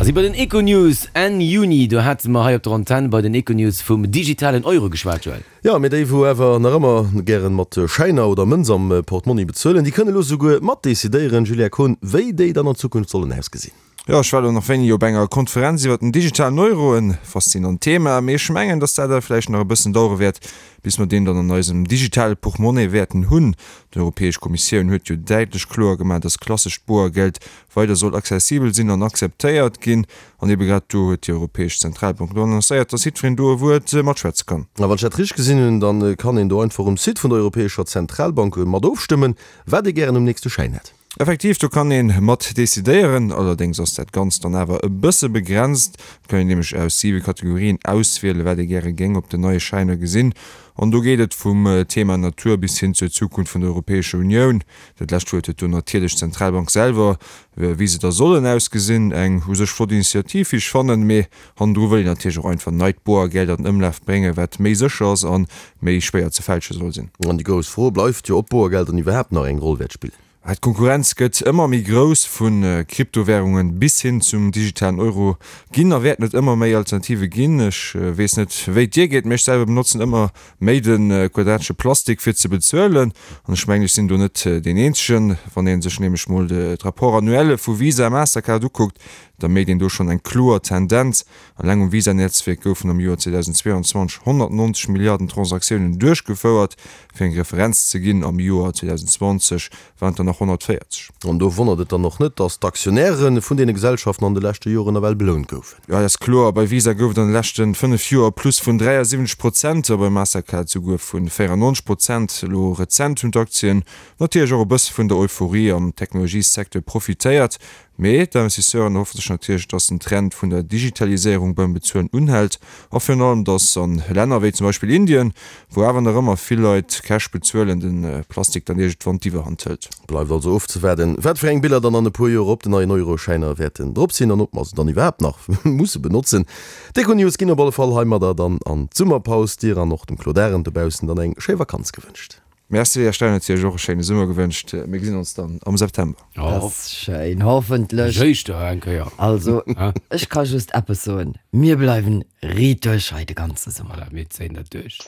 A si bei den Econews Enn Juni, do hate mer hei op der Antenn bei den Econews vum digitalen Euro geschwat, Joël. Jo, mee déi wou awer nach ëmmer gären mat Schäiner oder Mënz am Portmonni bezuelen, déi kënne lo souguer mat decidéieren, Julia Kohn, wéi déi dann an Zukunft sollen ausgesinn. Jo, ech war elo nach wéini op enger Konferenz iwwer den digitalen Euro, en faszinant Thema, mee ech mengen, dass dat awer vläicht nach e bëssen dauere wäert, bis mer deen dann an eisem digitale Portmonni wäerten hunn. D'Europäesch Kommissioun huet jo däitlech kloer gemaach, dass klassescht Boergeld weider soll accessibel sinn an akzeptéiert ginn. An ebe grad do huet déi Europäesch Zentralbank elo annoncéiert, dass jiddwereen do e Wuert matschwätze kann. A wann ech dat richteg gesinn hunn, da kann een do einfach um Site vun der Europäescher Zentralbank mat ofstëmmen, wat ee gären um nächste Schäin hätt. Effektiv, do kann ee mat decidéieren. Allerdéngs ass dat Ganzt dann awer e bësse begrenzt. Et kann een nämlech aus siwe Kategorien auswielen, wat ee gäre géing op den neie Schäiner gesinn. An do geet et vum Thema Natur bis hin zur Zukunft vun der Europäescher Unioun. Dat lescht Wuert huet do natierlech d'Zentralbank selwer, wéi se da sollen ausgesinn. Eng u sech flott Initiativ, wéi ech fannen, mee hannendru wëll een natierlech och einfach neit Boergeld an den Ëmlaf bréngen, wat méi sécher ass a méi schwéier ze fälsche soll sinn. An déi grouss Fro bleift jo, ob Boergeld dann iwwerhaapt nach eng Roll wäert spillen. D'Konkurrenz gëtt ëmmer méi grouss, vu Kryptowärungen bis hin zum digitalen Euro ginn a wäerten et ëmmer méi Alternative ginn. Ech weess net, wéi et dir geet, mee ech selwer benotzen ëmmer méi de quadratesche Plastik fir ze bezuelen. An ech mengen, ech sinn do net deen Eenzegen. Wann ee sech nämlech mol d'Rapports annuelle vu Visa a Mastercard ukuckt, da méit een do schonn eng kloer Tendenz. Eleng um Visa-Netzwierk goufen am Joer 2022 190 Milliarden Transaktiounen duerchgefouert. Fir eng Referenz ze ginn, am Joer 2020 waren et der nach 140. An do wonnert et dann och net, datt d'Aktionäre vun deene Gesellschaften an de leschte Joren nawell belount goufen. Jo, dat ass kloer. Bei Visa gouf et an de leschte 5 Joer e Plus vun 73 Prozent a bei Mastercard souguer vu 94 Prozent. Elo rezent hunn d'Aktien natierlech och e bësse vun der Euphorie am Technologiesecteur profitéiert. Mee d'Investisseuren erhoffe sech natierlech, dass den Trend vun der Digitaliséierung beim Bezuelen unhält a virun allem, dass a Länner wéi zum Beispill Indien, wou awer nach ëmmer vill Leit Cash bezuelen, de Plastik dann iergendwann d'Iwwerhand hëlt. Bleift also ofzewaarden, wat fir eng Biller dann an e puer Joer op den neien Euroschäiner wäerten drop sinn an ob mer se dann iwwerhaapt nach musse benotzen. D'Econews ginn op alle Fall heimadder dann an d'Summerpaus. Dir an och dem Claude Arend dobaussen dann eng schéi Vakanz gewënscht. Merci, Här Stein huet Iech och e schéine Summer gewënscht. Mir gesinn ons dann am September. Dat ass schéin, hoffentlech. Éischter eng Kéier. Also, ech ka just eppes soen, Mir bleiwen riit duerch hei de ganze Summer. Voilà, mir zéien dat duerch.